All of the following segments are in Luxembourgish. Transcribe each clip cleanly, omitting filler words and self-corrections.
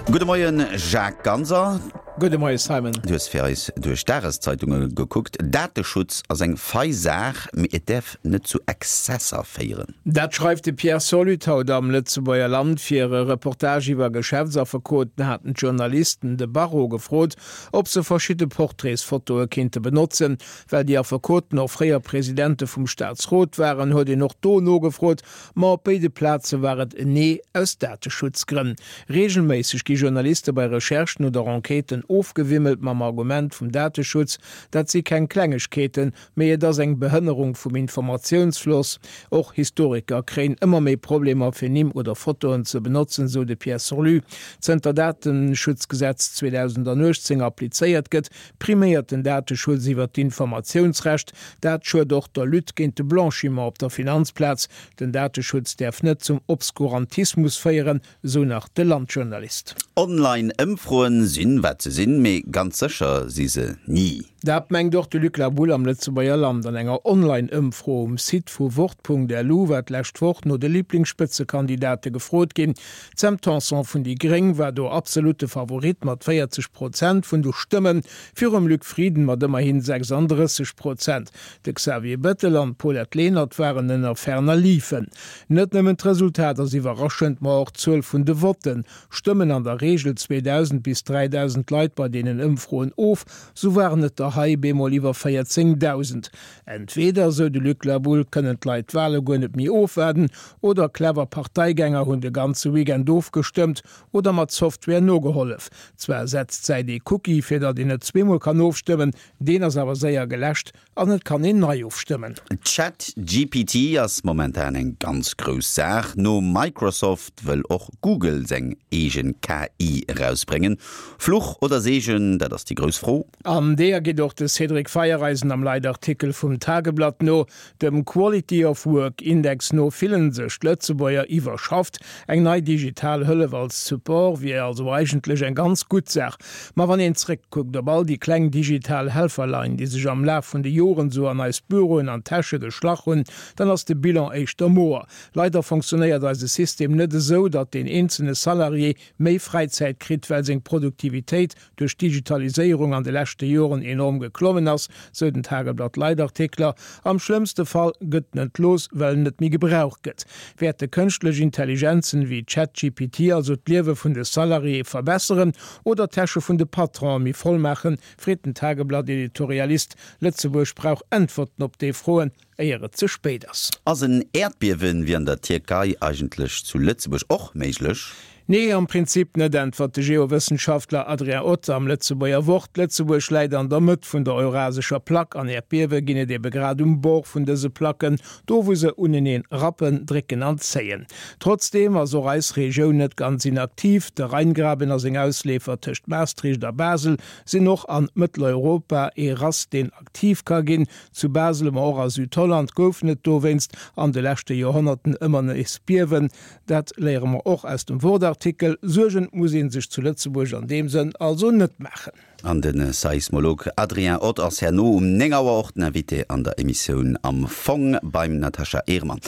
Gudde Moien Jacques Ganser. Gudde Moie Simon. Du hues fir eis duerch d'Dageszeitunge gekuckt. Dateschutz ass eng fei Saach, mee et däerf net zu Exzesser féieren. Dat schreift de Pierre Solut haut am Lëtzebuerger Land. Fir e Reportage iwwer Geschäftsaffekoten haten d'Journalisten de Barreau gefrot, ob se verschidde Portraitsfotoe kéinte benotzen. Well déi Affekoten och fréier Presidente vum Staatsrot waren, huet een och do nogefrot, Ma op béide Plaze war et en Nee aus Dateschutzgrënn. Reegelméisseg gi Journaliste bei Recherchen oder Enquêten ofgewimmelt mam Argument vum Dateschutz. Dat si keng Klengegkeeten, mee et ass eng Behënnerung vum Informatiounsfloss. Och Historiker kréien ëmmer méi Problemer fir Nimm oder Fotoen ze benotzen, sou de Pierre Sorlu. Zënter Dateschutzgesetz 2018 applizéiert gëtt, Priméiert den Dateschutz iwwer d'Informatiounsrecht? Dat schued och der Lutte géint de Blanchiment op der Finanzplaz. Den Dateschutz däerf net zum Obskurantismus féieren, sou nach de Landjournalist. Online-Ëmfroen sinn, wat se sinn, mee ganz sécher si se ni. Dat mengt och de Luc Laboulle am Lëtzebuerger Land. An enger Online-Ëmfro um Site vu Wort.lu war d'lescht Woch no de Liblingsspëtzekandidate gefrot ginn. D'Sam Tanson vun déi Gréng war do absolutte Favorit mat 40 Prozent vun de Stëmmen, virum Luc Frieden mat ëmmerhin 36 Prozent. De Xavier Bettel an d'Paulette Lenert waren ënner ferner liefen. Net nëmmen d'Resultat ass iwwerraschend, ma och d'Zuel vun de Votten. Stëmmen an der Reegel 2.000 bis 3.000 Leit bei deenen Ëmfroen of, sou waren et der hei bemol iwwer 14.000. Entweder, sou de Luc Laboulle, kënnen d'Leit d'Wale guer net méi ofwaarden, oder clever Parteigänger hunn de ganze Weekend ofgestëmmt oder mat Software nogehollef. Zwar setzt d'Säit ee Cookie, fir datt een net zweemol kann ofstëmmen, deen ass awer séier geläscht an et kann een nei ofstëmmen. Chat GPT ass momentan eng ganz grouss Saach. No Microsoft wëll och Google seng eegen KI erausbréngen. Fluch oder Seegen, dat ass déi grouss Fro. An deeër geet och de Cédric Feiereisen am Leitartikel vum Tageblatt no. Dem Quality of Work Index no fillen sech d'Lëtzebuerger iwwerschafft. Eng nei digital Hëllef als Support wier also eigentlech eng ganz gutt Saach. Ma wann een zréckkuckt op all déi kleng digital Helferlein, déi sech am Laf vun de Joren sou an eis Büroen an Täsche geschlach hunn, dann ass de Bilan éischter moer. Leider fonctionnéiert eise System net esou, datt deen eenzelne Salarié méi Fräizäit kritt, well seng Produktivitéit duerch d'Digitaliséierung an de leschte Joren enorm geklommen ass, sou den Tageblatt-Leitartikler. Am schlëmmste Fall gëtt en entlooss, well en net méi gebraucht gëtt. Wäerte kënschtlech Intelligenzen wéi ChatGPT also d'Liewe vun de Salariéë verbesseren oder d'Täsche vun de Patronen méi voll maachen, freet den Tageblatt-Editorialist. Lëtzebuerg brauch Äntwerten op déi Froen. Éier et ze spéit ass. Ass en Äerdbiewen wéi an der Tierkei eigentlech zu Lëtzebuerg och méiglech? Nee, am Prinzip net, äntwert de Geowëssenschaftler Adrien Ott am Lëtzebuerger Wort. Lëtzebuerg läit an der Mëtt vun der eurasescher Plack an Äerdbiewe ginn et ebe grad um Bord vun dëse Placken, do wou se uneneen rappen, drécken an zéien. Trotzdeem ass och eis Regioun net ganz inaktiv. De Rheingraben a seng Ausleefer tëscht Maastricht a Basel sinn och an Mëtteleuropa ee Rass, deen aktiv ka ginn. Zu Basel, ma och a Südholland goufen et dowéinst an de leschte Joerhonnerten ëmmer nees Biewen. Dat léiere mer och aus dem Wort-Artikel. Suergen muss ee sech zu Lëtzebuerg an deem Sënn also net maachen. An de Seismolog Adrien Ott ass herno um 9 Auer och den Invité an der Emissioun Am Fong beim Natascha Ehrmann.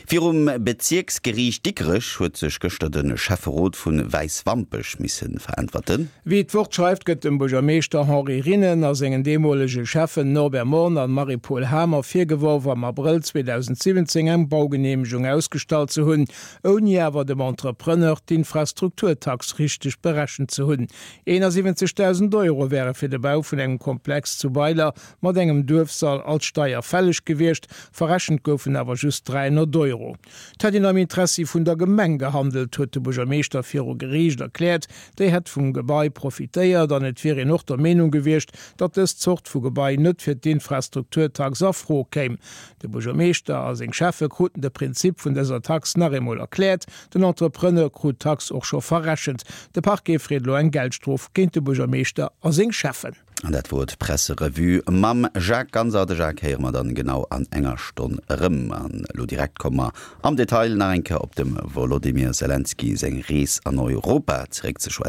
Virum Bezierksgeriicht Dikrech huet sech gëschter de Schäfferot vu Wäiswampech misse veräntwerten. Wéi d'Wort schreift, gëtt dem Buergermeeschter Henri Rinnen a sengen deemolege Schäffen Norbert Morn an Marie-Paule Hamer virgeworf, am Abrëll 2017 eng Baugeneemegung ausgestallt ze hunn, ouni awer dem Entrepreneur d'Infrastrukturtax richteg berechent ze hunn. 71.000 Euro wäre fir de Bau vun engem Komplex zu Weiler mat engem Duerfsall als Steier fälleg gewiescht, verrechent goufen awer just 300 Euro. Et hätt een am Interessi vun der Gemeng gehandelt, huet de Buergermeeschter viru Geriicht erkläert. Déi hätt vum Gebai profitéiert an et wier een och der Meenung gewiescht, datt dës Zort vu Gebai net fir d'Infrastrukturtax a Fro kéim. De Buergermeeschter a seng Schäffe kruten de Prinzip vun dëser Tax nach eemol erkläert. Den Entrepreneur krut d'Tax och scho verrechent. De Parquet freet elo eng Geldstrof géint de Buergermeeschter a seng Schäffen. An dat wor d'Presserevue mam Jacques Ganser. De Jacques héiere mer dann genau an enger Stonn erëm. An elo direkt komme mer am Detail nach eng Kéier op dem Wolodymyr Selenskyj seng Rees an Europa zeréck ze schwätzen.